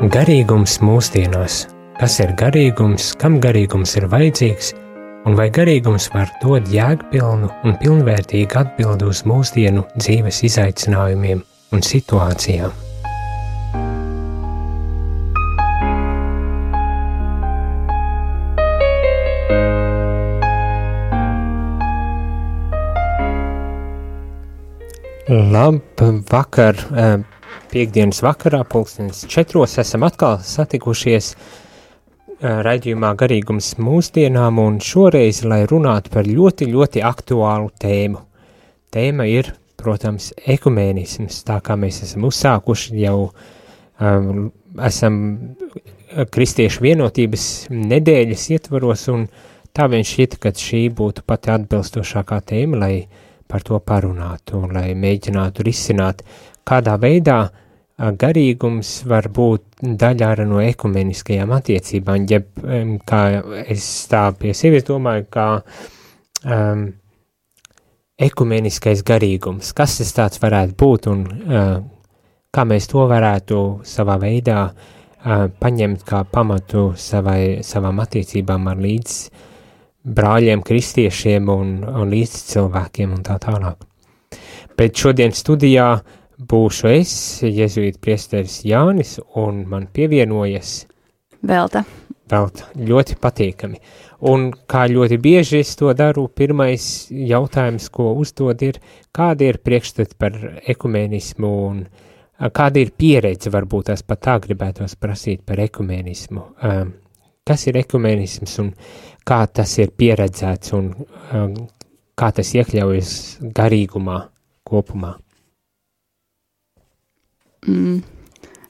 Garīgums mūsdienās. Kas ir garīgums, kam garīgums ir vajadzīgs, un vai garīgums var dot jēgpilnu un pilnvērtīgu atbildi uz mūsdienu dzīves izaicinājumiem un situācijām? Labvakar! Piektdienas vakarā, 4:00, esam atkal satikušies raidījumā Garīgums mūsdienām, un šoreiz, lai runātu par ļoti, ļoti aktuālu tēmu. Tēma ir, protams, ekumēnisms, tā kā mēs esam uzsākuši jau, esam kristiešu vienotības nedēļas ietvaros, un tā vien šķita, ka šī būtu pati atbilstošākā tēma, lai par to parunātu, un lai mēģinātu risināt, kādā veidā garīgums var būt daļa arī no ekumeniskajām attiecībām, ja kā es tā pie sevis domāju, kā ekumeniskais garīgums, kas tas tāds varētu būt un kā mēs to varētu savā veidā paņemt kā pamatu savām attiecībām ar līdz brāļiem, kristiešiem un līdz cilvēkiem un tā tālāk. Bet šodien studijā būšu es, jezuīta priesteris Jānis, un man pievienojas Velta. Ļoti patīkami. Un kā ļoti bieži es to daru, pirmais jautājums, ko uzdod ir, kāda ir priekšstati par ekumēnismu un kāda ir pieredze, varbūt tās pat tā gribētos prasīt par ekumēnismu. Kas ir ekumēnisms un kā tas ir pieredzēts un kā tas iekļaujas garīgumā kopumā?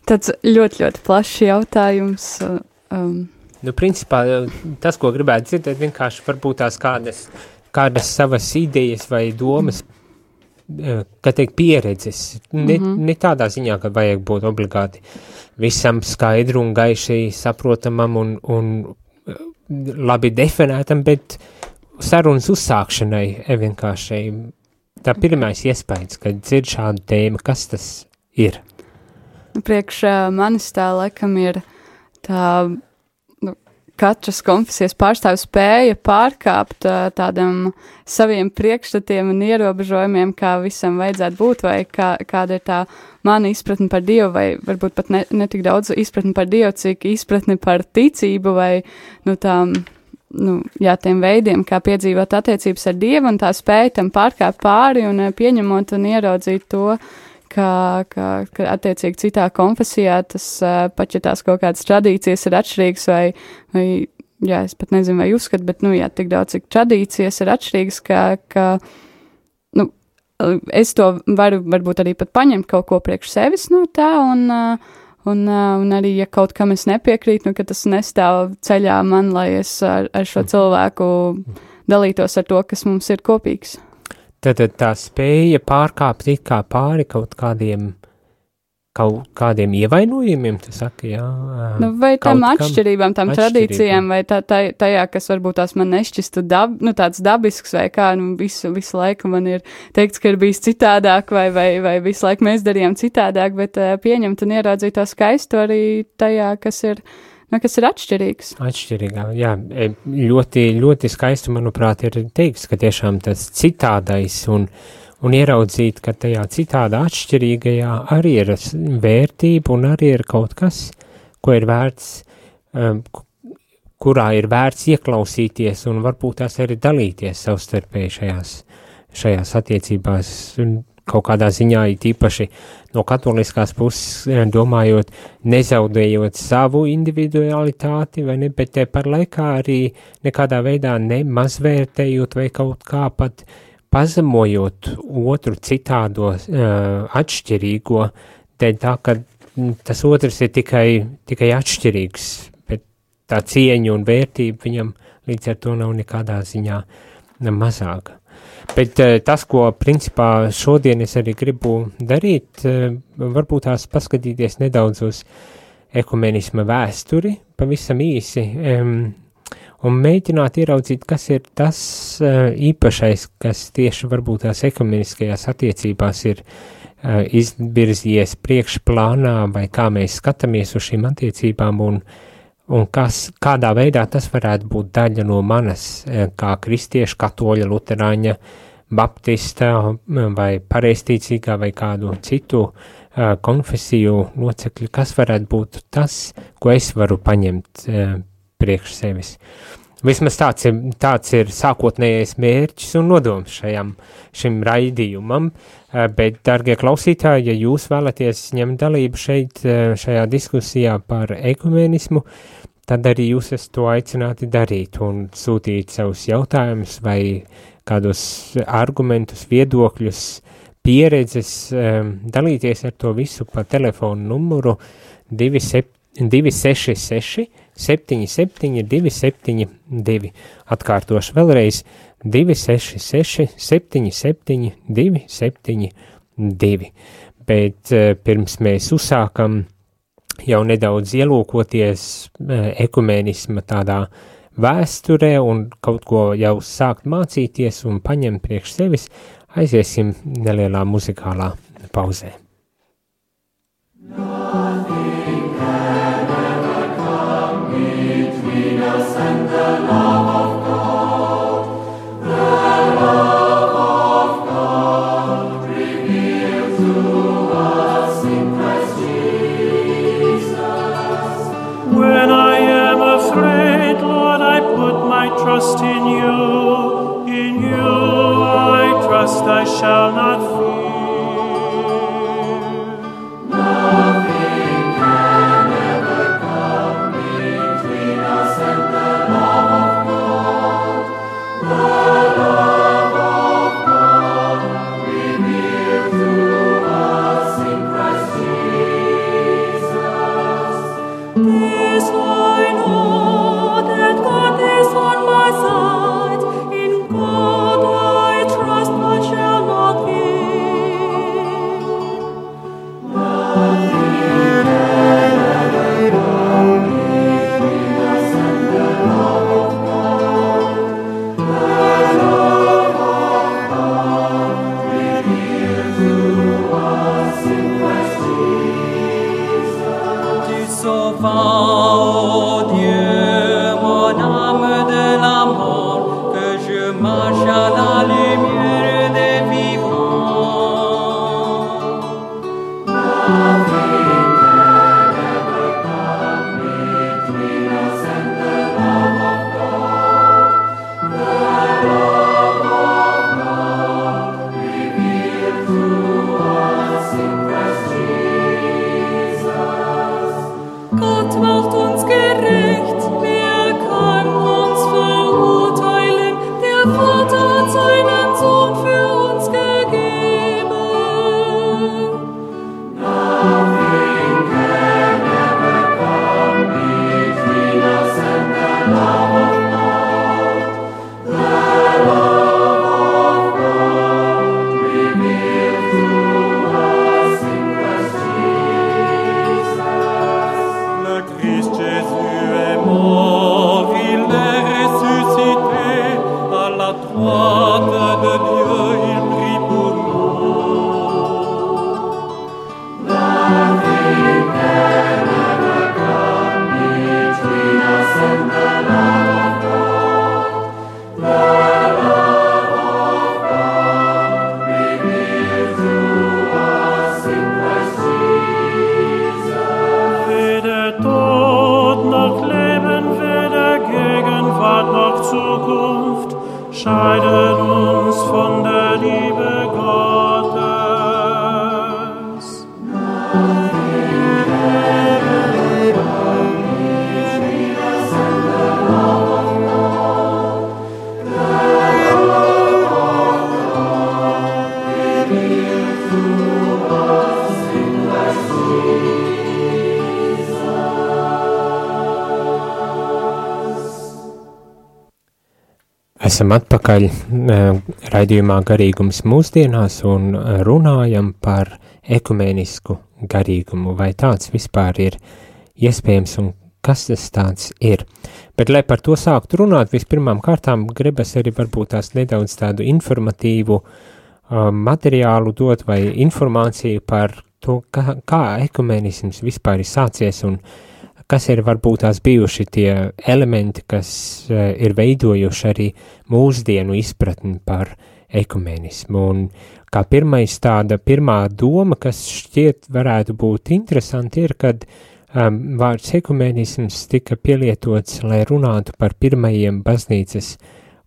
Tāds ļoti, ļoti plašs jautājums. Principā, tas, ko gribētu dzirdēt, vienkārši varbūt tās kādas savas idejas vai domas, kā teikt, pieredzes. Ne tādā ziņā, ka vajag būt obligāti visam skaidru un gaiši saprotamam un labi definētam, bet sarunas uzsākšanai vienkārši tā pirmais iespējas, kad dzird šādu tēmu, kas tas ir? Priekš manis tā laikam ir tā, katras konfesijas pārstāvis spēja pārkāpt tādam saviem priekšstatiem un ierobežojumiem, kā visam vajadzētu būt, vai kāda ir tā mana izpratne par Dievu, vai varbūt pat ne tik daudz izpratne par Dievu, cik izpratne par ticību, vai tiem veidiem, kā piedzīvot attiecības ar Dievu, un tā spēja tam pārkāpt pāri un pieņemot un ieraudzīt to, ka attiecīgi citā konfesijā tas pat, ja tās kaut kādas tradīcijas ir atšķirīgas vai es pat nezinu, vai uzskat, bet, tik daudz, cik tradīcijas ir atšķirīgas, ka es to varu varbūt arī pat paņemt kaut ko priekš sevis no tā, un arī, ja kaut kam es nepiekrītu, ka tas nestāv ceļā man, lai es ar šo cilvēku dalītos ar to, kas mums ir kopīgs. Tad tā spēja pārkāpt it kā pāri kaut kādiem ievainojumiem, tu saki, jā? Vai tam atšķirībām, tam tradīcijām, vai tajā, kas varbūt tās man nešķistu tāds dabisks, vai kā, visu laiku man ir teikts, ka ir bijis citādāk, vai visu laiku mēs darījām citādāk, bet pieņemt un ieraudzīt to skaistu arī tajā, kas ir atšķirīgs. Atšķirīgā, jā. Ļoti, ļoti skaisti, manuprāt, ir teiks, ka tiešām tas citādais un ieraudzīt, ka tajā citādā atšķirīgajā arī ir vērtība un arī ir kaut kas, ko ir vērts, kurā ir vērts ieklausīties un varbūt tās arī dalīties savstarpēji šajās attiecībās un kaut kādā ziņā īpaši no katoliskās puses domājot, nezaudējot savu individualitāti, vai ne, bet te par laikā arī nekādā veidā nemazvērtējot vai kaut kā pat pazemojot otru citādo atšķirīgo, dēļ tā, ka tas otrs ir tikai atšķirīgs, bet tā cieņa un vērtība viņam līdz ar to nav nekādā ziņā mazāka. Bet tas, ko principā šodien es arī gribu darīt, varbūt tās paskatīties nedaudz uz ekumenisma vēsturi, pavisam īsi, un mēģināt ieraudzīt, kas ir tas īpašais, kas tieši varbūt tās ekumeniskajās attiecībās ir izvirzījies priekšplānā, vai kā mēs skatāmies uz šīm attiecībām, un kādā veidā tas varētu būt daļa no manas, kā kristieša, katoļa, luterāņa, baptista vai pareizticīgā vai kādu citu konfesiju locekļu, kas varētu būt tas, ko es varu paņemt priekš sevis. Vismaz tāds ir sākotnējais mērķis un nodoms šim raidījumam, bet, dargie klausītāji, ja jūs vēlaties ņemt dalību šajā diskusijā par ekumenismu, tad arī jūs esat to aicināti darīt un sūtīt savus jautājumus vai kādus argumentus, viedokļus, pieredzes, dalīties ar to visu pa telefonu numuru 266 77 272. Atkārtošu vēlreiz 266 77 272. Bet pirms mēs uzsākam jau nedaudz ielūkoties ekumenisma tādā vēsturē un kaut ko jau sākt mācīties un paņemt priekš sevis, aiziesim nelielā muzikālā pauzē. Nothing can ever come between us and the love of God. The love of God revealed to us in Christ Jesus. When I am afraid, Lord, I put my trust in you. In you I trust, I shall not fear. Nothing can ever come between us and the love of God. The love of God revealed to us in Christ Jesus. This I know, that God is on my side. In God I trust, I shall not fear. Scheidet uns von der Liebe Gottes. Esam atpakaļ raidījumā Garīgums mūsdienās un runājam par ekumenisku garīgumu, vai tāds vispār ir iespējams un kas tas tāds ir. Bet, lai par to sāktu runāt, vispirmām kārtām gribas arī varbūt tās nedaudz tādu informatīvu materiālu dot vai informāciju par to, kā ekumenisms vispār ir sācies un kas ir varbūt tās bijuši tie elementi, kas ir veidojuši arī mūsdienu izpratni par ekumenismu. Un kā pirmā doma, kas šķiet varētu būt interesanti, ir, kad vārds ekumenisms tika pielietots, lai runātu par pirmajiem baznīcas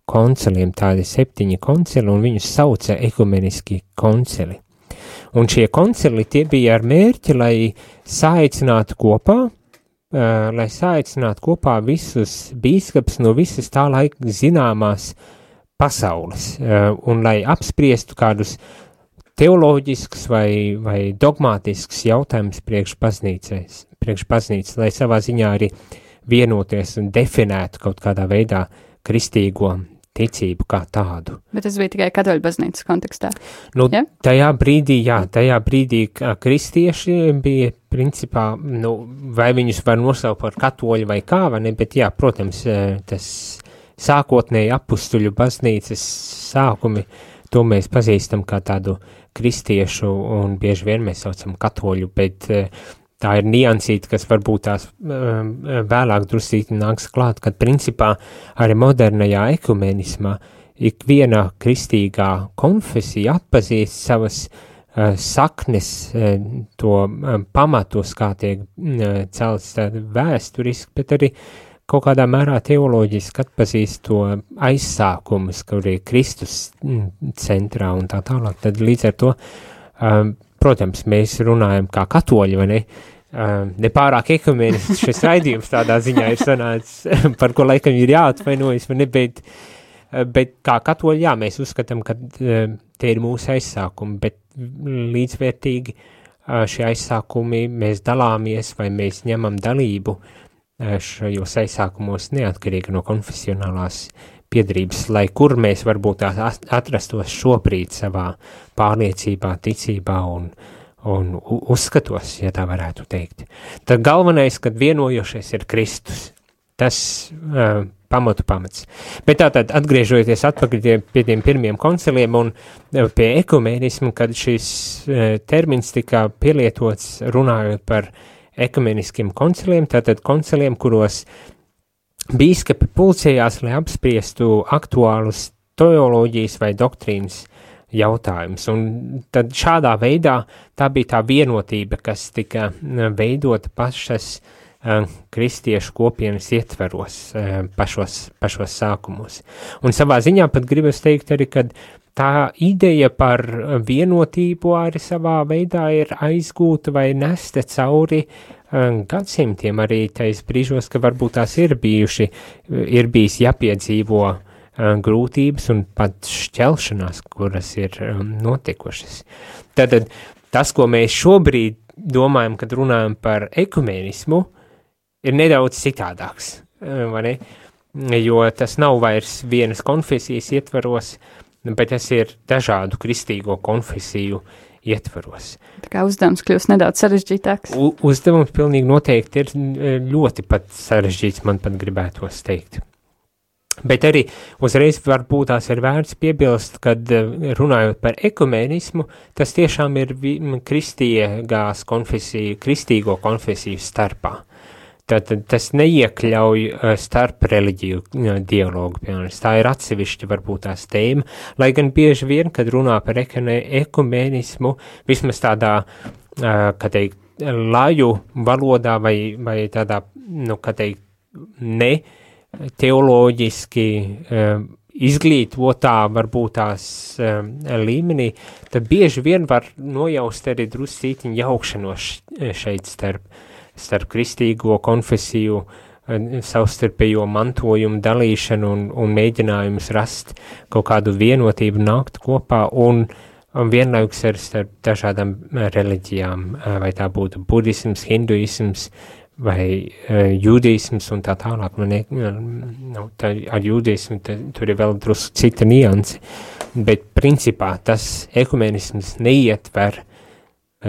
konciliem, tādi 7 koncili, un viņus sauca ekumeniski koncili. Un šie koncili tie bija ar mērķi, lai saicinātu kopā visus bīskaps no visas tā laika zināmās pasaules, un lai apspriestu kādus teoloģiskus vai dogmātiskus jautājumus priekš baznīcas, lai savā ziņā arī vienoties un definētu kaut kādā veidā kristīgo ticību kā tādu. Bet tas bija tikai katoļu baznīcas kontekstā? Ja? Tajā brīdī kristieši bija principā, vai viņus var nosaukt par katoļu vai kā, vai ne, bet jā, protams, tas sākotnēji apustuļu baznīcas sākumi, to mēs pazīstam kā tādu kristiešu un bieži vien mēs saucam katoļu, bet tā ir niansīta, kas varbūt tās vēlāk drusīti nāks klāt, kad principā arī modernajā ekumenismā ikviena kristīgā konfesija atpazīst savas saknes, to pamatus, kā tiek celts vēsturiski, bet arī kaut kādā mērā teoloģiski atpazīst to aizsākumus, kur ir Kristus centrā un tā tālāk. Tad līdz ar to protams, mēs runājam kā katoļi, vai ne? Nepārāk ekumenisks šis raidījums tādā ziņā ir sanācis, par ko laikam ir jāatvainojas, vai ne? Bet kā katoļi, jā, mēs uzskatām, ka tie ir mūsu aizsākumi, bet līdzvērtīgi šie aizsākumi mēs dalāmies vai mēs ņemam dalību šajos aizsākumos neatkarīgi no konfesionālās piederības, lai kur mēs varbūt atrastos šobrīd savā pārliecībā, ticībā un uzskatos, ja tā varētu teikt. Tad galvenais, kad vienojošies ir Kristus, tas pamats. Bet tātad atgriežoties atpakaļ pie tiem pirmiem konciliem un pie ekumenismu, kad šis termins tika pielietots runājot par ekumeniskiem konciliem, tātad konciliem, kuros bīskapi pulcējās, lai apspriestu aktuālus teoloģijas vai doktrīnas jautājumus. Un tad šādā veidā tā bija tā vienotība, kas tika veidota pašas kristiešu kopienas ietveros pašos sākumos. Un savā ziņā pat gribas teikt arī, ka tā ideja par vienotību arī savā veidā ir aizgūta vai nesta cauri gadsimtiem arī tais brīžos, ka varbūt tās ir bijis jāpiedzīvo grūtības un pat šķelšanās, kuras ir notikušas. Tad tas, ko mēs šobrīd domājam, kad runājam par ekumenismu, ir nedaudz citādāks, vai ne? Jo tas nav vairs vienas konfesijas ietvaros, bet tas ir dažādu kristīgo konfesiju ietvaros. Tā kā uzdevums kļūst nedaudz sarežģītāks. Uzdevums pilnīgi noteikti ir ļoti pat sarežģīts, man pat gribētos teikt. Bet arī uzreiz varbūt tās ir vērts piebilst, kad runājot par ekumenismu, tas tiešām ir kristīgo konfesiju starpā. Tad tas neiekļauj starp reliģiju dialogu, piemēram. Tā ir atsevišķa varbūt tās tēma, lai gan bieži vien, kad runā par ekumenismu, vismaz tādā, kā teikt, laju valodā vai tādā, kā teikt, ne teoloģiski izglītotā varbūt tās līmenī, tad bieži vien var nojaust arī druscītiņu jaukšanos šeit starp kristīgo konfesiju, savstarpējo mantojumu dalīšanu un mēģinājumus rast kaut kādu vienotību nākt kopā un vienlaikus ar starp dažādām reliģijām, vai tā būtu budisms, hinduisms vai jūdisms un tā tālāk. Ar jūdismu tur ir vēl drusku cita nianse, bet principā tas ekumenisms neietver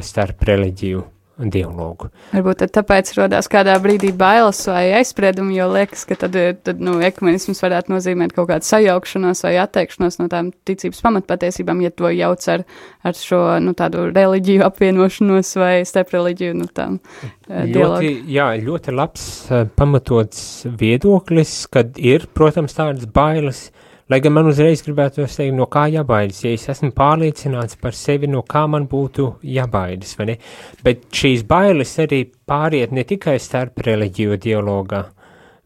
starp reliģiju dialogu. Varbūt tāpēc rodās kādā brīdī bailes vai aizspriedumi, jo liekas, ka tad ekumenisms varētu nozīmēt kaut kādu sajaukšanos vai atteikšanos no tām ticības pamatpatiesībām, ja to jauc ar šo, tādu reliģiju apvienošanos vai starp reliģiju, dialogu. Ļoti labs pamatots viedoklis, kad ir, protams, tādas bailes, lai gan man uzreiz gribētu teikt, no kā jābaidas, ja es esmu pārliecināts par sevi, no kā man būtu jābaidas, vai ne? Bet šīs bailes arī pāriet ne tikai starp reliģiju dialogā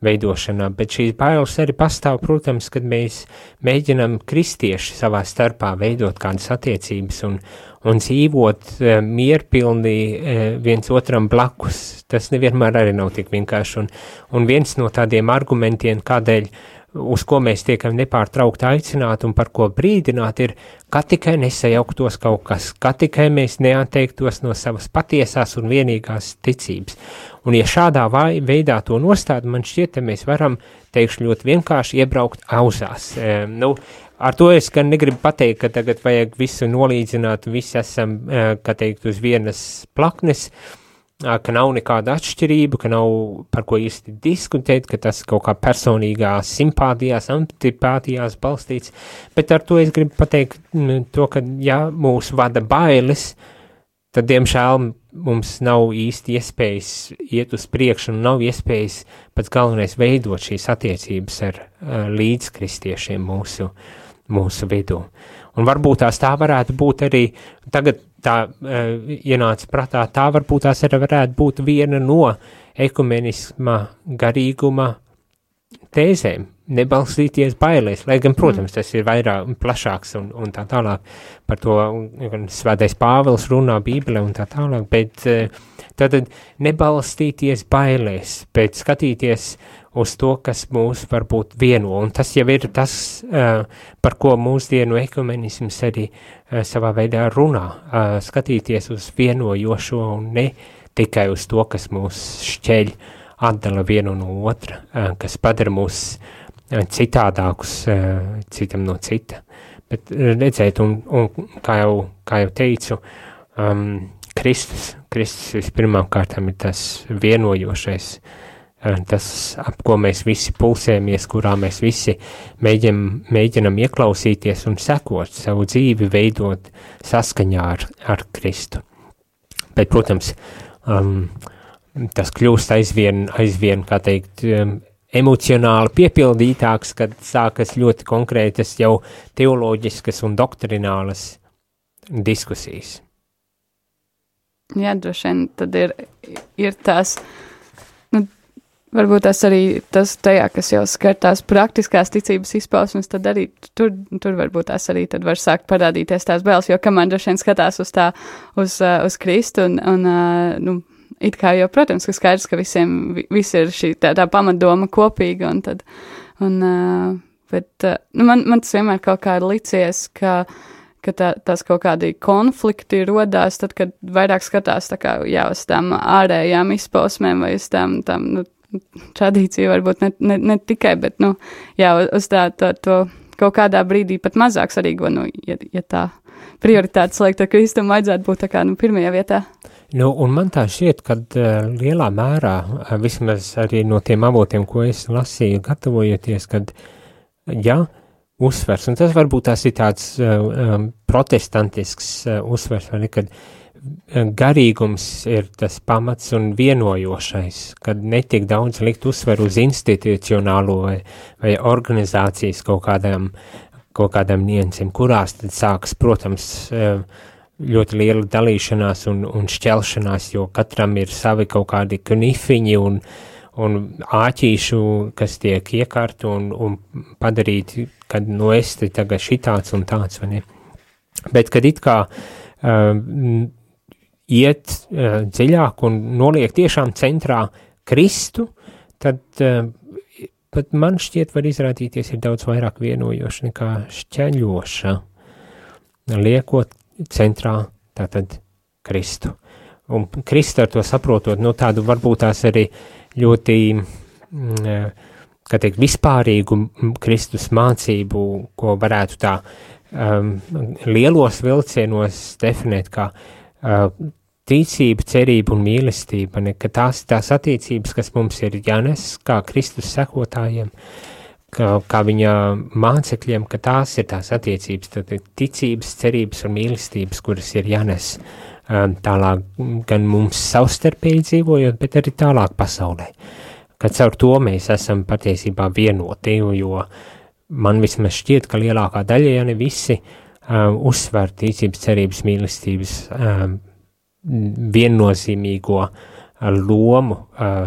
veidošanā, bet šīs bailes arī pastāv, protams, kad mēs mēģinam kristieši savā starpā veidot kādas attiecības un dzīvot mierpilnī viens otram blakus. Tas nevienmēr arī nav tik vienkārši. Un viens no tādiem argumentiem, kādēļ uz ko mēs tiekam nepārtraukti aicināti un par ko brīdināt, ir, ka tikai nesajauktos kaut kas, ka tikai mēs neatteiktos no savas patiesās un vienīgās ticības. Un ja šādā veidā to nostāda, man šķiet, ka mēs varam, teikšu ļoti vienkārši, iebraukt auzās. Ar to es gan negribu pateikt, ka tagad vajag visu nolīdzināt, visi esam, kā teikt, uz vienas plaknes, ka nav nekāda atšķirība, ka nav par ko īsti diskutēt, ka tas kaut kā personīgās simpātijās, antipātijās balstīts, bet ar to es gribu pateikt to, ka ja mūs vada bailes, tad, diemžēl, mums nav īsti iespējas iet uz priekšu un nav iespējas pats galvenais veidot šīs attiecības ar līdzkristiešiem mūsu vidū. Un varbūt tā varētu būt arī, tagad tā ienāca prātā, tā varbūt tās arī varētu būt viena no ekumenisma garīguma tēzēm, nebalstīties bailēs, lai gan, protams, tas ir vairāk plašāks un tā tālāk, par to Svētais Pāvils runā Bībelē un tā tālāk, bet tātad nebalstīties bailēs, bet skatīties uz to, kas mūs varbūt vieno, un tas jau ir tas, par ko mūsdienu ekumenisms arī savā veidā runā, skatīties uz vienojošo un ne tikai uz to, kas mūs šķeļ, atdala vienu no otra, kas padara mūs citādākus citam no cita. Bet redzēt, un kā jau teicu, Kristus vispirmām kārtām ir tas vienojošais, tas, ap ko mēs visi pulsējamies, kurā mēs visi mēģinam ieklausīties un sekot savu dzīvi, veidot saskaņā ar Kristu. Bet, protams, tas kļūst aizvien, kā teikt, emocionāli piepildītāks, kad sākas ļoti konkrētas jau teoloģiskas un doktrinālas diskusijas. Jā, droši vien tad ir tās, varbūt tas arī tas tajā, kas jau skar tās praktiskās ticības izpausmes, tad arī tur varbūt tās arī tad var sākt parādīties tās bailes, jo kamēr droši vien skatās uz Kristu un it kā jau, protams, ka skaidrs, ka visi ir šī tā pamatdoma kopīga bet man tas vienmēr kaut kā ir licies, ka tās kaut kādi konflikti rodās, tad, kad vairāk skatās tā kā, jā, uz tām ārējām izpausmēm vai uz tām tradīciju varbūt ne tikai, bet, jā, uz to kaut kādā brīdī pat mazāk svarīgo, ja tā prioritātes liek, tad Kristum vajadzētu būt tā kā, pirmajā vietā. Un man tā šķiet, kad lielā mērā, vismaz arī no tiem avotiem, ko es lasīju, gatavojoties, kad, jā, uzsvers, un tas varbūt tās ir tāds protestantisks uzsvers, vai ne, kad garīgums ir tas pamats un vienojošais, kad netiek daudz likt uzsveru uz institucionālo vai organizācijas kaut kādām niansēm, kurās tad sākas, protams, ļoti liela dalīšanās un šķelšanās, jo katram ir savi kaut kādi knifiņi un āķīšu, kas tiek iekārti un padarīti, kad es te tagad šitāds un tāds, vai ne? Bet, kad it kā iet dziļāk un noliek tiešām centrā Kristu, tad pat man šķiet var izrādīties ir daudz vairāk vienojoša nekā šķeļoša, liekot centrā tātad Kristu. Un Kristu ar to saprotot, tādu varbūt tās arī ļoti, kā teikt, vispārīgu Kristus mācību, ko varētu tā lielos vilcienos definēt kā ticība, cerība un mīlestība, ne, ka tās attiecības, kas mums ir jānes kā Kristus sekotājiem, kā viņa mācekļiem, ka tās ir tās attiecības, tad ticības, cerības un mīlestības, kuras ir jānes tālāk gan mums savstarpēji dzīvojot, bet arī tālāk pasaulē. Kad caur to mēs esam patiesībā vienoti, jo man vismaz šķiet, ka lielākā daļa, ja ne visi, uzsver ticības, cerības, mīlestības viennozīmīgo lomu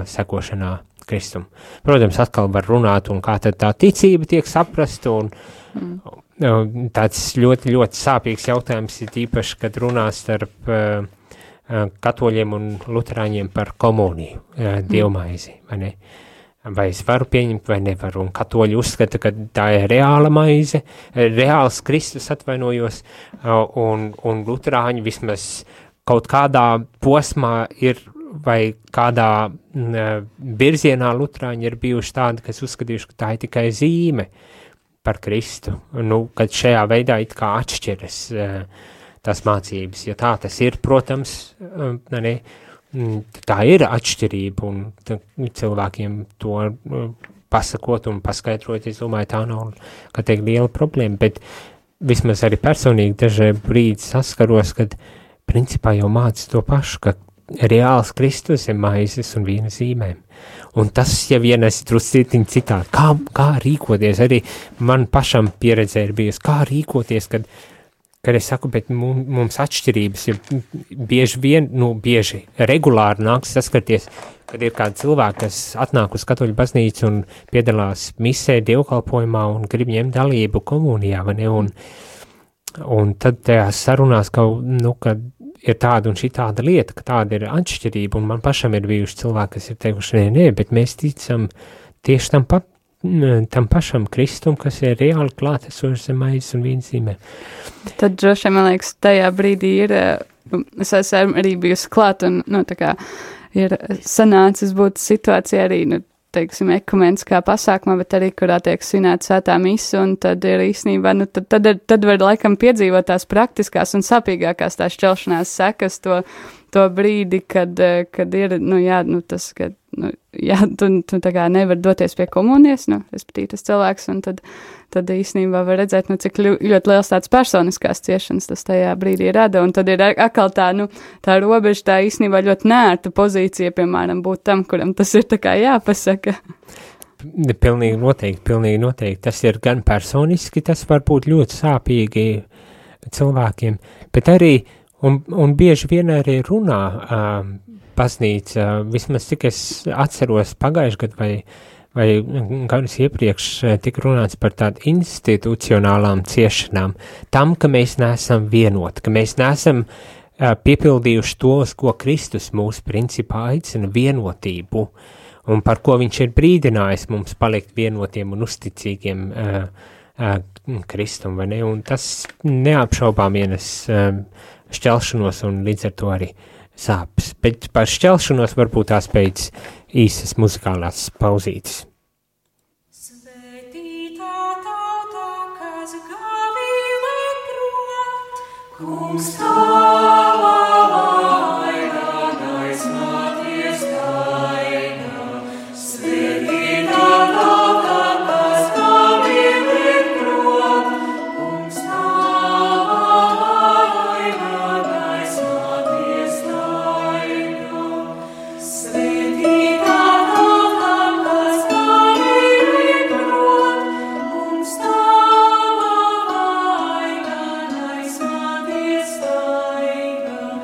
sekošanā Kristum. Protams, atkal var runāt, un kā tad tā ticība tiek saprasta, un tāds ļoti, ļoti sāpīgs jautājums ir īpaši, kad runā starp katoļiem un luterāņiem par komuniju, dievmaizi, vai ne? Vai es varu pieņemt, vai nevaru, un katoļi uzskata, ka tā ir reāla maize, reāls Kristus, atvainojos, un luterāņi vismaz kaut kādā posmā ir, vai kādā virzienā luterāņi ir bijuši tādi, kas uzskatījuši, ka tā ir tikai zīme par Kristu, kad šajā veidā it kā atšķiras tās mācības, ja tā tas ir, protams, tā ir atšķirība, un cilvēkiem to pasakot un paskaidrot, es domāju, tā nav, kā teikt, liela problēma, bet vismaz arī personīgi dažai brīdi saskaros, kad principā jau māca to pašu, ka reāls Kristus ir maizes un vīna zīmēm. Un tas jau ienes druscītiņ citādi. Kā rīkoties, arī man pašam pieredzē ir bijusi, kā rīkoties, kad es saku, bet mums atšķirības ir bieži, regulāri nāks saskarties, kad ir kādi cilvēki, kas atnāk uz katoļu baznīcu un piedalās misē, dievkalpojumā un grib ņemt dalību komunijā, vai ne? Un tad tajās sarunās, kad ir tāda un šī tāda lieta, ka tāda ir atšķirība, un man pašam ir bijuši cilvēki, kas ir teikuši, nē, bet mēs ticam tieši tam pašam Kristum, kas ir reāli klātesošs zem maizes un vīna zīmēm. Tad droši, man liekas, tajā brīdī ir, es esmu arī bijusi klāt, un, tā kā ir sanācis būt situācija arī, teiksim, ekumeniskā pasākumā, bet arī, kurā tiek svinēta svētā mise, un tad ir īstenībā, tad var laikam piedzīvot tās praktiskās un sapīgākās tās šķelšanās sekas to brīdi, kad ir, tas, ka, tu tā kā nevar doties pie komunijas, respektīvi tas cilvēks, un tad īstenībā var redzēt, cik ļoti liels tāds personiskās ciešanas tas tajā brīdī rada, un tad ir atkal tā robeža, tā īstenībā ļoti nērta pozīcija, piemēram, būt tam, kuram tas ir tā kā jāpasaka. Pilnīgi noteikti. Tas ir gan personiski, tas var būt ļoti sāpīgi cilvēkiem, bet arī, un bieži vien arī runā baznīca, vismaz cik es atceros pagājuši gadu vai gadus iepriekš tika runāts par tādu institucionālām ciešanām, tam, ka mēs neesam vienoti, ka mēs neesam piepildījuši to, uz ko Kristus mūs principā aicina vienotību, un par ko viņš ir brīdinājis mums palikt vienotiem un uzticīgiem Kristum, vai ne? Un tas neapšaubām ienes šķelšanos un līdz ar to arī sāpes. Bet par šķelšanos varbūt tās pēc īsas muzikālās pauzītes. Svētītā tauta, kas gavīlē prot, kungs tavā vaina, aizmāties taina. Svētītā tauta, kas gavīlē prot, kungs tavā vaina, aizmāties taina. Svētītā tauta, kas gavīlē prot, kungs tavā vaina, aizmāties taina.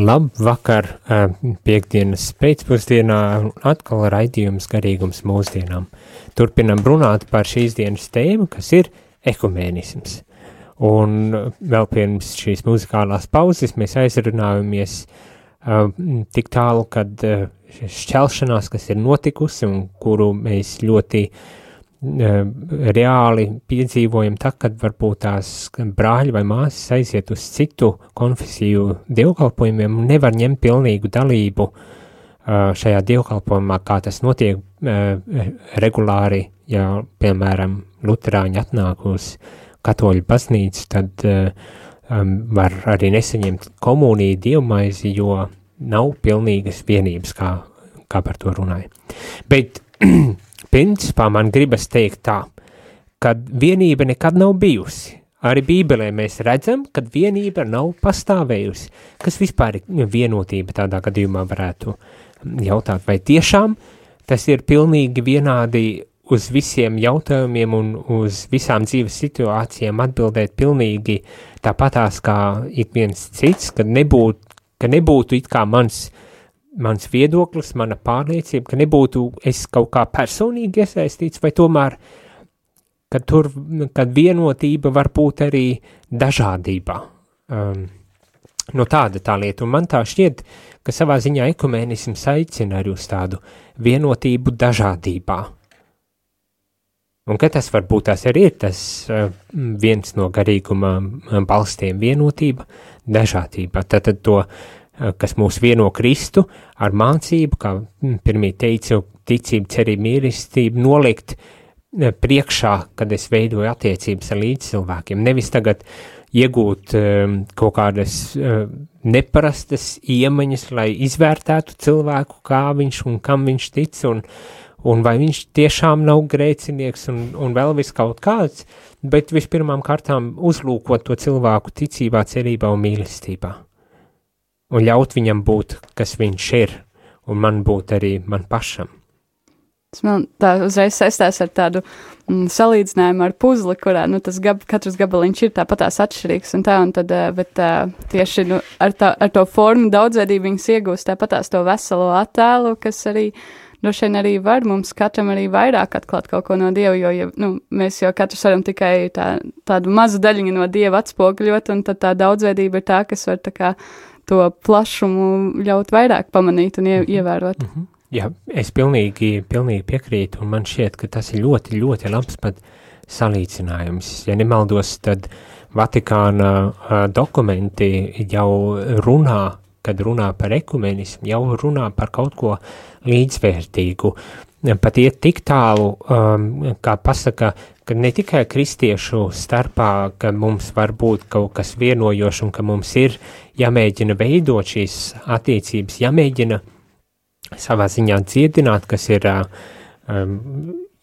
Labvakar, piektdienas pēcpusdienā atkal raidījums garīgums mūsdienām. Turpinam runāt par šīs dienas tēmu, kas ir ekumēnisms. Un vēl pirms šīs muzikālās pauzes mēs aizrunājamies tik tālu, kad šķelšanās, kas ir notikusi un kuru mēs ļoti reāli piedzīvojam tā, kad varbūt tās brāļi vai māsas aiziet uz citu konfesiju dievkalpojumiem un nevar ņemt pilnīgu dalību šajā dievkalpojumā, kā tas notiek regulāri, ja, piemēram, luterāņi atnāk uz katoļu baznīcu, tad var arī nesaņemt komuniju dievmaizi, jo nav pilnīgas vienības, kā par to runāja. Bet principā man gribas teikt tā, ka vienība nekad nav bijusi. Arī Bībelē mēs redzam, ka vienība nav pastāvējusi. Kas vispār ir vienotība tādā gadījumā varētu jautāt, vai tiešām tas ir pilnīgi vienādi uz visiem jautājumiem un uz visām dzīves situācijām atbildēt pilnīgi tāpatās kā ik viens cits, ka nebūtu it kā mans viedoklis, mana pārliecība, ka nebūtu es kaut kā personīgi iesaistīts, vai tomēr, kad vienotība var būt arī dažādībā. No tāda tā lieta, un man tā šķiet, ka savā ziņā ekumēnisms aicina arī uz tādu vienotību dažādībā. Un ka tas varbūt tās arī ir tas viens no garīguma balstiem vienotība, dažādība. Tātad to, kas mūs vieno Kristu ar mācību, kā pirmie teicu, ticību, cerību, mīlestību, nolikt priekšā, kad es veidoju attiecības ar līdzcilvēkiem. Nevis tagad iegūt kaut kādas neparastas iemaņas, lai izvērtētu cilvēku, kā viņš un kam viņš tic, un vai viņš tiešām nav grēcinieks un vēl vis kaut kāds, bet vispirmām kārtām uzlūkot to cilvēku ticībā, cerībā un mīlestībā. Un ļaut viņam būt, kas viņš ir, un man būt arī man pašam. Tas man tā uzreiz saistās ar tādu salīdzinājumu ar puzli, kurā, katrs gabaliņš ir tāpatās atšķirīgs un tad, bet tieši, ar to formu daudzveidību viņas iegūst tāpatās to veselo attēlu, kas arī, droši vien arī var mums katram arī vairāk atklāt kaut ko no Dieva, jo, mēs jau katrs varam tikai tādu mazu daļiņu no Dieva atspoguļot, un tad tā daudzveidība ir tā, kas var tā kā to plašumu ļaut vairāk pamanīt un ievērot. Jā, es pilnīgi piekrītu, un man šķiet, ka tas ir ļoti, ļoti labs pat salīdzinājums. Ja nemaldos, tad Vatikāna dokumenti jau kad runā par ekumenismu, jau runā par kaut ko līdzvērtīgu. Pat iet tik tālu, kā pasaka, ka ne tikai kristiešu starpā, ka mums var būt kaut kas vienojošs un ka mums ir jāmēģina veidot šīs attiecības, jāmēģina savā ziņā dziedināt, kas ir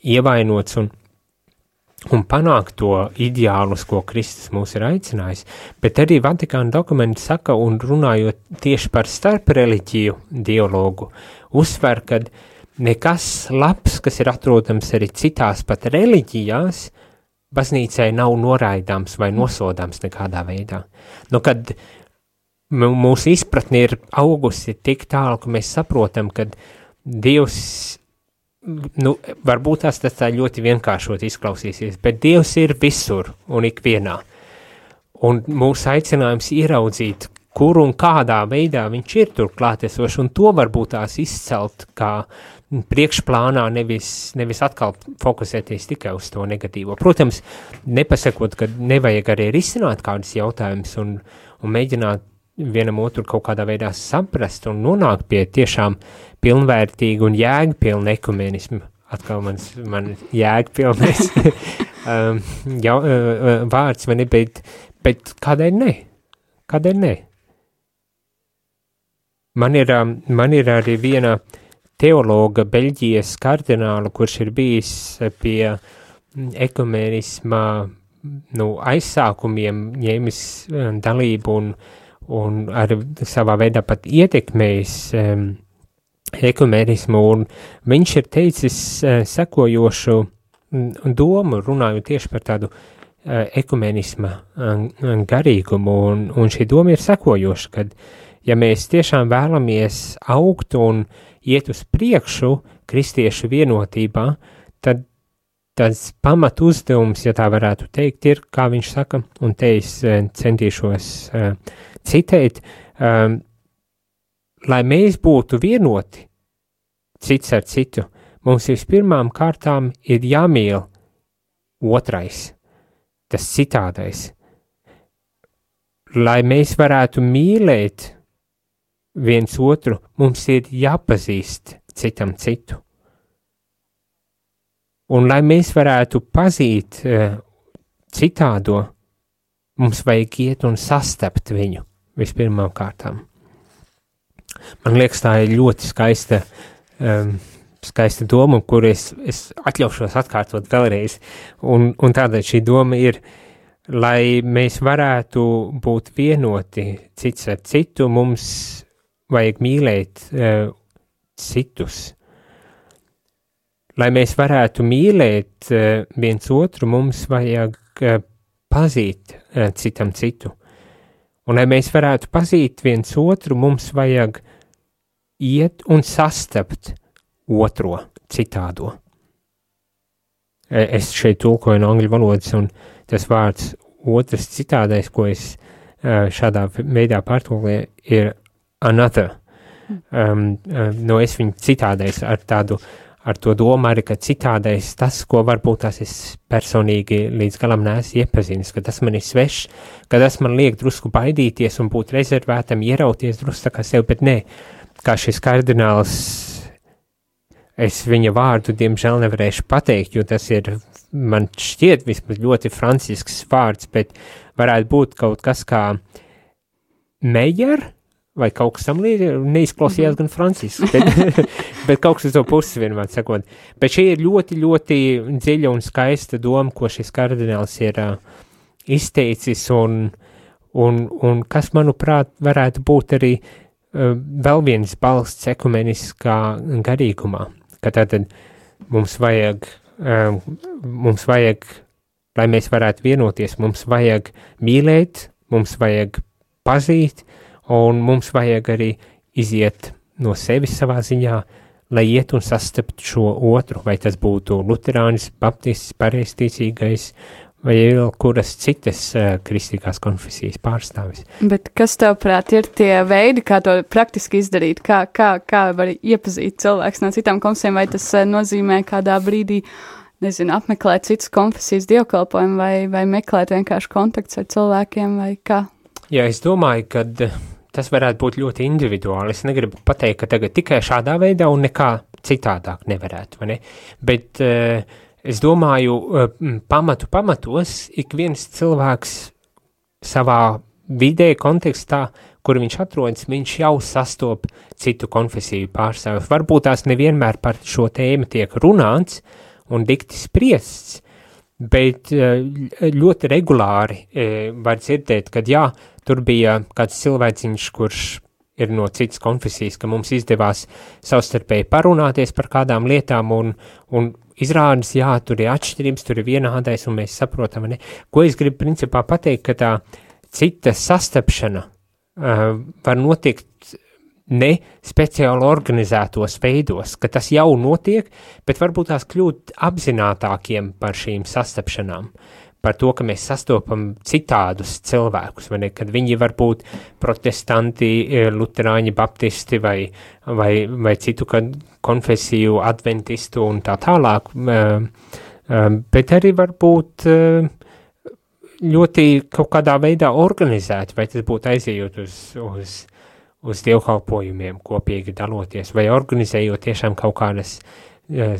ievainots un panākt to ideālus, ko Kristus mūs ir aicinājis, bet arī Vatikāna dokumenti saka, un runājot tieši par starpreliģiju dialogu, uzsver, kad nekas labs, kas ir atrodams arī citās pat reliģijās, baznīcai nav noraidāms vai nosodāms nekādā veidā. Kad mūsu izpratne ir augusi tik tālu, ka mēs saprotam, ka Dievs, varbūt tas tā ļoti vienkāršot izklausīsies, bet Dievs ir visur un ikvienā. Un mūsu aicinājums ieraudzīt, kur un kādā veidā viņš ir tur klātesošs, un to varbūt tās izcelt kā priekšplānā, nevis atkal fokusēties tikai uz to negatīvo. Protams, nepasakot, ka nevajag arī risināt kādus jautājumus un mēģināt vienam otru kaut kādā veidā saprast un nonākt pie tiešām pilnvērtīgu un jēgpilnu ekumenismu. Atkal man jēgpilnais vārds, vai ne, bet kādēļ ne? Kādēļ ne? Man ir arī viena teologa Beļģijas kardināla, kurš ir bijis pie ekumenisma aizsākumiem, ņēmis dalību un arī savā veidā pat ietekmējis ekumenismu, un viņš ir teicis sekojošu domu, runājot tieši par tādu ekumenisma garīgumu, un šī doma ir sekojoša, kad ja mēs tiešām vēlamies augt un iet uz priekšu kristiešu vienotībā, tad tas pamat uzdevums, ja tā varētu teikt, ir, kā viņš saka, un te es centīšos citēt, lai mēs būtu vienoti cits ar citu, mums vispirmām kārtām ir jāmīl otrais, tas citādais. Lai mēs varētu mīlēt viens otru, mums ir jāpazīst citam citu. Un lai mēs varētu pazīt citādo, mums vajag iet un sastapt viņu vispirmām kārtām. Man liekas, tā ir ļoti skaista doma, kur es atļaušos atkārtot vēlreiz. Un tādēļ šī doma ir, lai mēs varētu būt vienoti cits ar citu, mums vajag mīlēt citus. Lai mēs varētu mīlēt viens otru, mums vajag pazīt citam citu. Un lai mēs varētu pazīt viens otru, mums vajag iet un sastapt otro citādo. Es šeit tulkoju no angļu valodas, un tas vārds otrs citādais, ko es šādā veidā pārtulkoju, ir another. Es viņu citādais ar to domu arī, ka citādais tas, ko varbūt tās es personīgi līdz galam neesmu iepazinis, ka tas man ir svešs, ka tas man liek drusku baidīties un būt rezervētam, ierauties drusku tā kā sev, bet nē, kā šis kardināls, es viņa vārdu diemžēl nevarēšu pateikt, jo tas ir, man šķiet vismaz ļoti francisks vārds, bet varētu būt kaut kas kā Mejer, vai kaut kas tam neizklausījās gan francisks, bet kaut kas uz to puses vienmēr sakot. Bet šī ir ļoti, ļoti dziļa un skaista doma, ko šis kardināls ir izteicis, un kas, manuprāt, varētu būt arī vēl viens balsts ekumeniskā garīgumā, ka tātad mums vajag, lai mēs varētu vienoties, mums vajag mīlēt, mums vajag pazīt, un mums vajag arī iziet no sevis savā ziņā, lai iet un sastapt šo otru, vai tas būtu luterānis, baptists, pareizticīgais, vai vēl kuras citas kristīgās konfesijas pārstāvis. Bet kas tavprāt ir tie veidi, kā to praktiski izdarīt? Kā var iepazīt cilvēks no citām konfesijām, vai tas nozīmē kādā brīdī, nezinu, apmeklēt citas konfesijas dievkalpojumu, vai meklēt vienkārši kontakts ar cilvēkiem, vai kā? Jā, es domāju, ka tas varētu būt ļoti individuāli. Es negribu pateikt, ka tagad tikai šādā veidā un nekā citādāk nevarētu, vai ne? Bet es domāju, pamatos ik viens cilvēks savā vidē, kontekstā, kur viņš atrodas, viņš jau sastop citu konfesiju pārstāvjus. Varbūt tās nevienmēr par šo tēmu tiek runāts un dikti spriests, bet ļoti regulāri var dzirdēt, kad jā, tur bija kāds cilvēciņš, kurš ir no citas konfesijas, ka mums izdevās savstarpēji parunāties par kādām lietām un izrādas, jā, tur ir atšķirības, tur ir vienādais un mēs saprotam, ne? Ko es gribu principā pateikt, ka tā cita sastapšana var notikt ne speciāli organizētos veidos, ka tas jau notiek, bet varbūt tās kļūt apzinātākiem par šīm sastapšanām, par to, ka mēs sastopam citādus cilvēkus, vai ne, kad viņi var būt protestanti, luterāņi, baptisti vai citu konfesiju adventistu un tā tālāk, bet arī var būt ļoti kaut kādā veidā organizēti, vai tas būtu aizejot uz dievkalpojumiem, kopīgi daloties, vai organizējot tiešām kaut kādas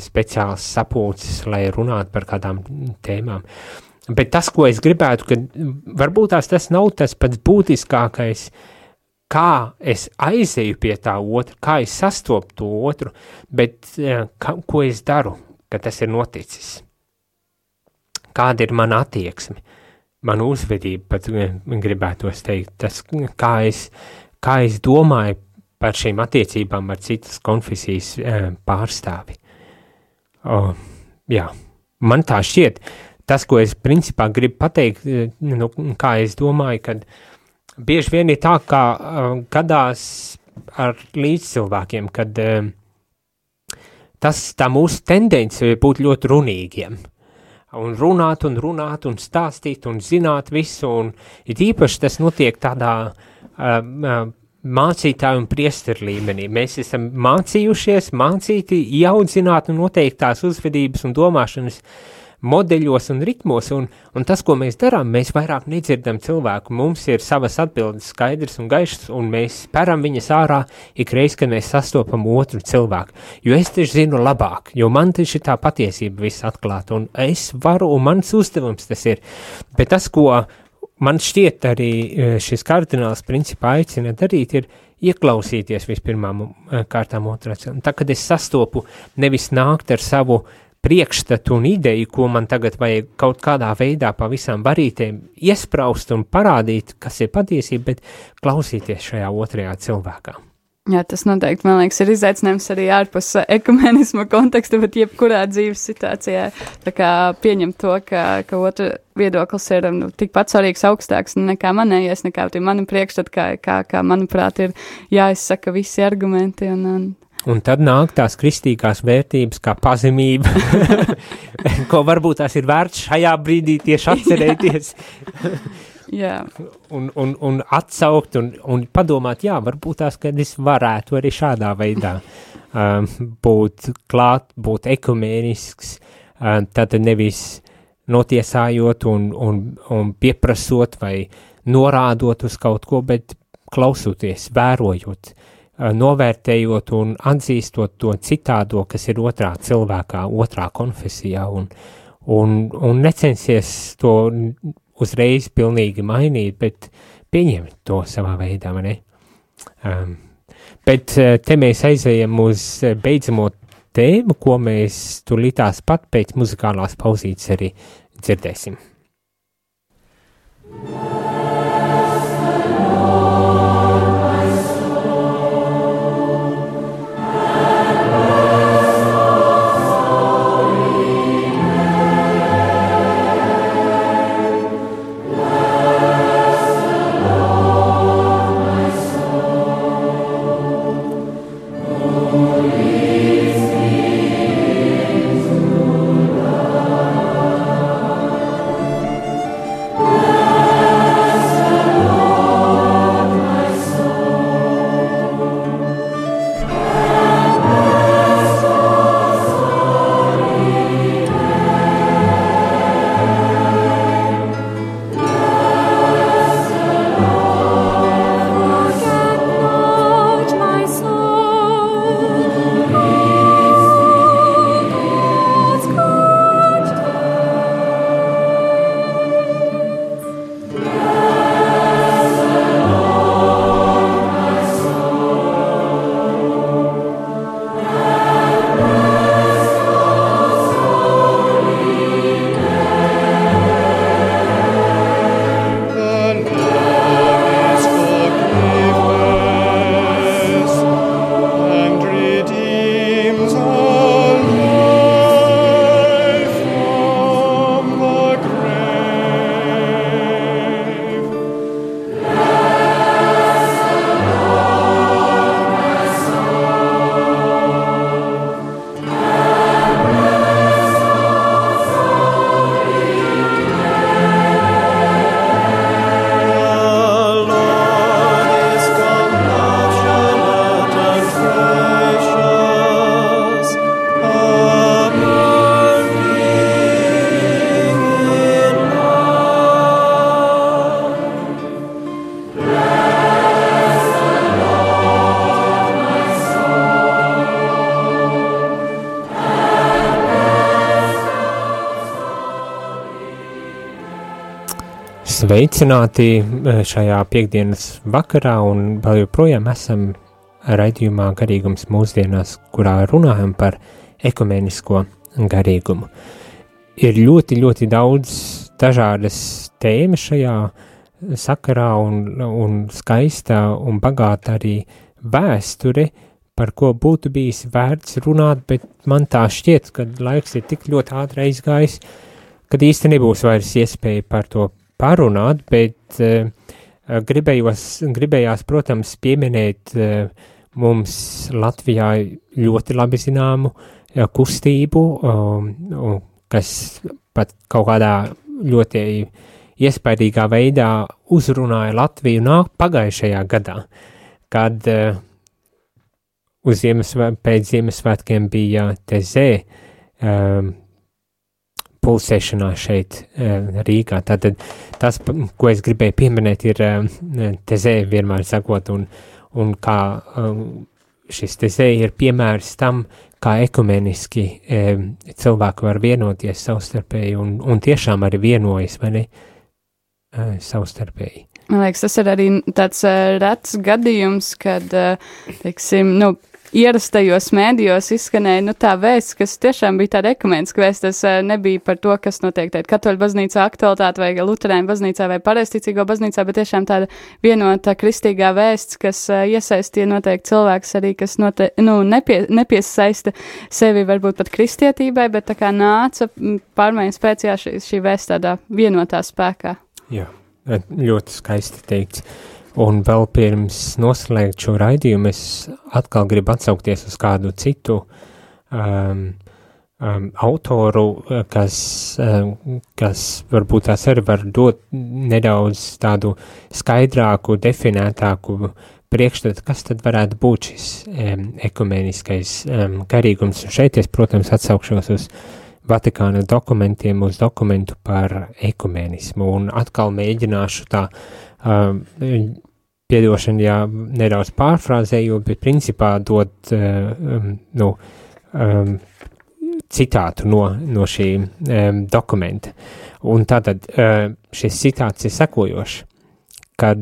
speciālas sapulces, lai runātu par kādām tēmām. Bet tas, ko es gribētu, ka varbūt tas nav tas pats būtiskākais, kā es aizeju pie tā otra, kā es sastopu to otru, bet ko es daru, ka tas ir noticis. Kāda ir mana attieksme, mana uzvedība, pat gribētos teikt, tas, kā es domāju par šīm attiecībām ar citas konfesijas pārstāvi. Jā, man tā šķiet. Tas, ko es principā gribu pateikt, kā es domāju, kad bieži vien ir tā, kā gadās ar līdzcilvēkiem, kad tā mūsu tendence ir būt ļoti runīgiem. Un runāt, un stāstīt, un zināt visu, un it īpaši tas notiek tādā mācītāju un priesteru līmenī. Mēs esam mācīti, ieaudzināt un noteiktās uzvedības un domāšanas modeļos un ritmos, un tas, ko mēs darām, mēs vairāk nedzirdam cilvēku. Mums ir savas atbildes skaidrs un gaišs, un mēs speram viņas ārā ikreiz, kad mēs sastopam otru cilvēku. Jo es taču zinu labāk, jo man taču tā patiesība viss atklāta, un es varu, un mans uzdevums tas ir. Bet tas, ko man šķiet arī šis kardināls principā aicina darīt, ir ieklausīties vispirmām kārtām otrā cilvēku. Tā, kad es sastopu, nevis nākt ar savu priekšstatu un ideju, ko man tagad vajag kaut kādā veidā pa visām varītēm iespraust un parādīt, kas ir patiesība, bet klausīties šajā otrajā cilvēkā. Jā, tas noteikti, man liekas, ir izaicinājums arī ārpus ekumenisma konteksta, bet jebkurā dzīves situācijā tā kā pieņemt to, ka otra viedoklis ir tikpat svarīgs, augstāks nekā manējais, nekā mani priekšstati, kā manuprāt, ir jāizsaka visi argumenti Un tad nāk tās kristīgās vērtības kā pazemība, ko varbūt tās ir vērts šajā brīdī tieši atcerēties. Jā. Un atsaukt un padomāt, varbūt tās, kad es varētu arī šādā veidā būt klāt, būt ekumēnisks, tad nevis notiesājot un pieprasot vai norādot uz kaut ko, bet klausoties, vērojot, novērtējot un atzīstot to citādo, kas ir otrā cilvēkā, otrā konfesijā, un necensies to uzreiz pilnīgi mainīt, bet pieņemt to savā veidā, ne? Bet te mēs aizējam uz beidzamo tēmu, ko mēs tūlītās pat pēc muzikālās pauzītes arī dzirdēsim. Sveicināti šajā piekdienas vakarā un vēl joprojām esam raidījumā Garīgums mūsdienās, kurā runājam par ekumenisko garīgumu. Ir ļoti, ļoti daudz dažādas tēmas šajā sakarā un skaista un bagāta arī vēsture, par ko būtu bijis vērts runāt, bet man tā šķiet, ka laiks ir tik ļoti ātri aizgājis, kad īsti nebūs vairs iespēja par to parunāt, bet gribējās, protams, pieminēt mums Latvijā ļoti labi zināmu kustību, kas pat kaut kādā ļoti iespaidīgā veidā uzrunāja Latviju pagājušajā gadā, kad pēc Ziemassvētkiem bija tezē pulsēšanās šeit Rīgā. Tātad tas, ko es gribēju pieminēt, ir tezē vienmēr sakot, un kā šis tezē ir piemērs tam, kā ekumeniski cilvēki var vienoties savstarpēji, un tiešām arī vienojas, vai ne, savstarpēji. Man liekas, tas ir arī tāds rets gadījums, kad, teiksim, ierastajos mēdījos izskanēja, tā vēsts, kas tiešām bija tāda ekumeniska vēsts, tas nebija par to, kas notiek teikt katoļu baznīcā aktualitāte vai luterāņu baznīcā vai pareizticīgo baznīcā, bet tiešām tāda vienota kristīgā vēsts, kas iesaistīja noteikti cilvēks arī, kas nepiesaista sevi varbūt pat kristietībai, bet tā kā nāca pārmaiņas pēc, šī vēsts tādā vienotā spēkā. Jā, ļoti skaisti teikts. Un vēl pirms noslēgt šo raidījumu, es atkal gribu atsaukties uz kādu citu autoru, kas varbūt tās arī var dot nedaudz tādu skaidrāku, definētāku priekšstatu, kas tad varētu būt šis ekumeniskais garīgums. Un šeit es, protams, atsaukšos uz Vatikāna dokumentiem, uz dokumentu par ekumenismu, un atkal mēģināšu tā piedošana, jā, nedaudz pārfrāzējot, bet principā dot citātu no šī dokumenta. Un tātad šis citāts ir sekojošs, kad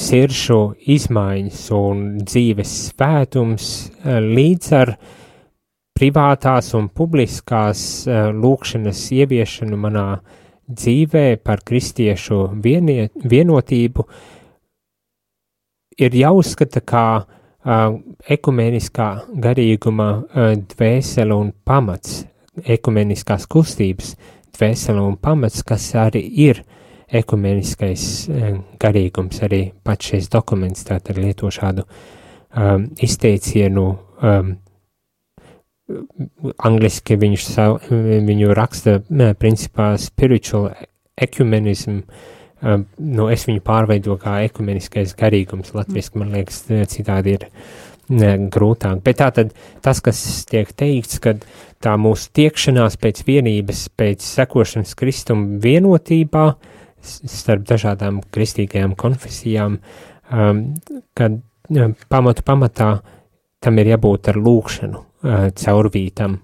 siršu izmaiņas un dzīves svētums līdz ar privātās un publiskās lūkšanas ieviešanu manā dzīvē par kristiešu vienotību ir jāuzskata kā ekumeniskā garīguma dvēsele un pamats, ekumeniskās kustības dvēsele un pamats, kas arī ir ekumeniskais garīgums. Arī pats šis dokuments tātad lieto šādu izteicienu, angliski viņu raksta principā spiritual ecumenism, es viņu pārveido kā ekumeniskais garīgums, latviski, man liekas, citādi ir grūtāk. Bet tātad tas, kas tiek teikts, kad tā mūsu tiekšanās pēc vienības, pēc sekošanas Kristum vienotībā starp dažādām kristīgajām konfesijām, kad pamatā tam ir jābūt ar lūkšanu caurvītam,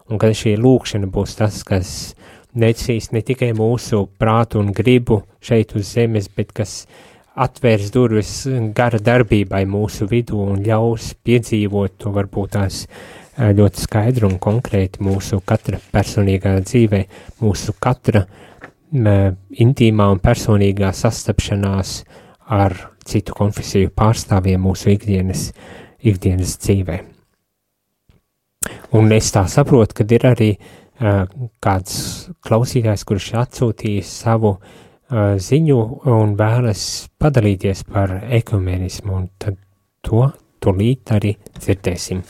un kad šī lūkšana būs tas, kas necīs ne tikai mūsu prātu un gribu šeit uz zemes, bet kas atvērs durvis gara darbībai mūsu vidū un ļaus piedzīvot to varbūt tās ļoti skaidru un konkrēti mūsu katra personīgā dzīvē, mūsu katra intīmā un personīgā sastapšanās ar citu konfesiju pārstāvjiem mūsu ikdienas dzīvē. Un es tā saprotu, ka ir arī kāds klausītājs, kurš atsūtījis savu ziņu un vēlas padalīties par ekumenismu, un tad to tūlīt arī dzirdēsim.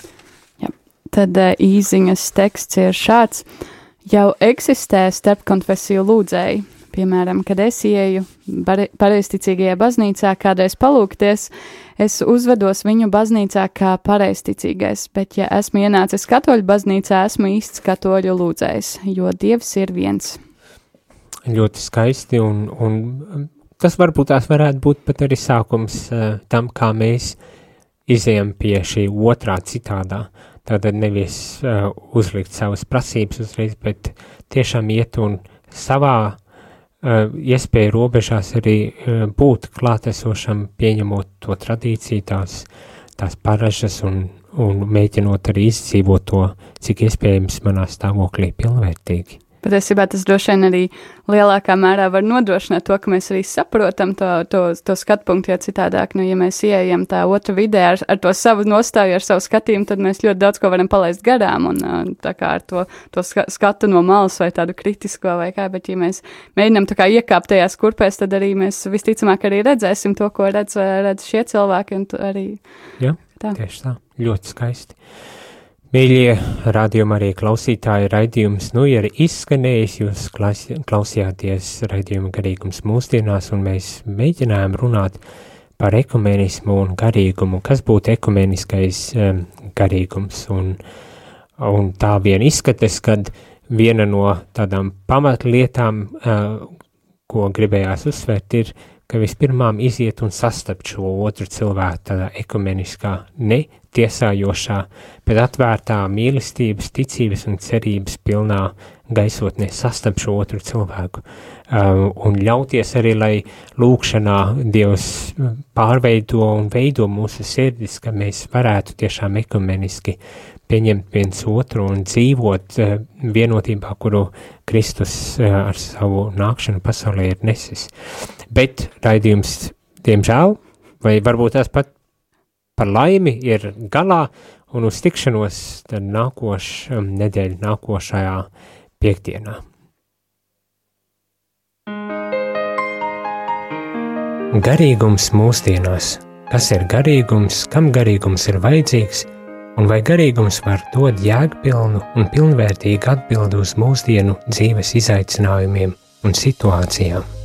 Jā, tad īziņas teksts ir šāds. Jau eksistē starpkonfesiju lūdzēji. Piemēram, kad es ieju pareizticīgajā baznīcā kādreiz palūgties, es uzvedos viņu baznīcā kā pareizticīgais, bet ja esmu ienācis katoļu baznīcā, esmu īsts katoļu lūdzējs, jo Dievs ir viens. Ļoti skaisti, un tas varbūt tās varētu būt pat arī sākums tam, kā mēs izejam pie šī otrā citādā. Tātad nevis uzlikt savas prasības uzreiz, bet tiešām iet un savā iespēju robežās arī būt klātesošam, pieņemot to tradīciju, tās paražas un mēģinot arī izdzīvot to, cik iespējams manā stāvoklī pilnvērtīgi. Patiesībā tas droši vien arī lielākā mērā var nodrošināt to, ka mēs arī saprotam to skatu punktu, jo citādāk, ja mēs ieejam tā otra vidē ar to savu nostāju, ar savu skatījumu, tad mēs ļoti daudz ko varam palaist garām, un tā kā ar to skatu no malas vai tādu kritisko vai kā, bet ja mēs mēģinām tā kā iekāpt tajās kurpēs, tad arī mēs visticamāk arī redzēsim to, ko redz šie cilvēki, un arī. Jā, tieši tā, ļoti skaisti. Mīļie radījuma arī klausītāji, raidījums ir izskanējis, jūs klausījāties raidījuma garīgums mūsdienās, un mēs mēģinājām runāt par ekumenismu un garīgumu, kas būtu ekumeniskais garīgums, un tā vien izskatas, kad viena no tādām pamatlietām, ko gribējās uzsvērt, ir, ka vispirmām iziet un sastapt šo otru cilvēku tādā ekumeniskā, ne tiesājošā, bet atvērtā mīlestības, ticības un cerības pilnā gaisotnē sastapt šo otru cilvēku. Un ļauties arī, lai lūkšanā Dievs pārveido un veido mūsu sirdis, ka mēs varētu tiešām ekumeniski pieņemt viens otru un dzīvot vienotībā, kuru Kristus ar savu nākšanu pasaulē ir nesis. Bet raidījums, diemžēl, vai varbūt tās pat par laimi ir galā, un uz tikšanos tad nedēļa nākošajā piekdienā. Garīgums mūsdienās. Kas ir garīgums, kam garīgums ir vajadzīgs, un vai garīgums var dot jēgpilnu un pilnvērtīgu atbildi uz mūsdienu dzīves izaicinājumiem un situācijām?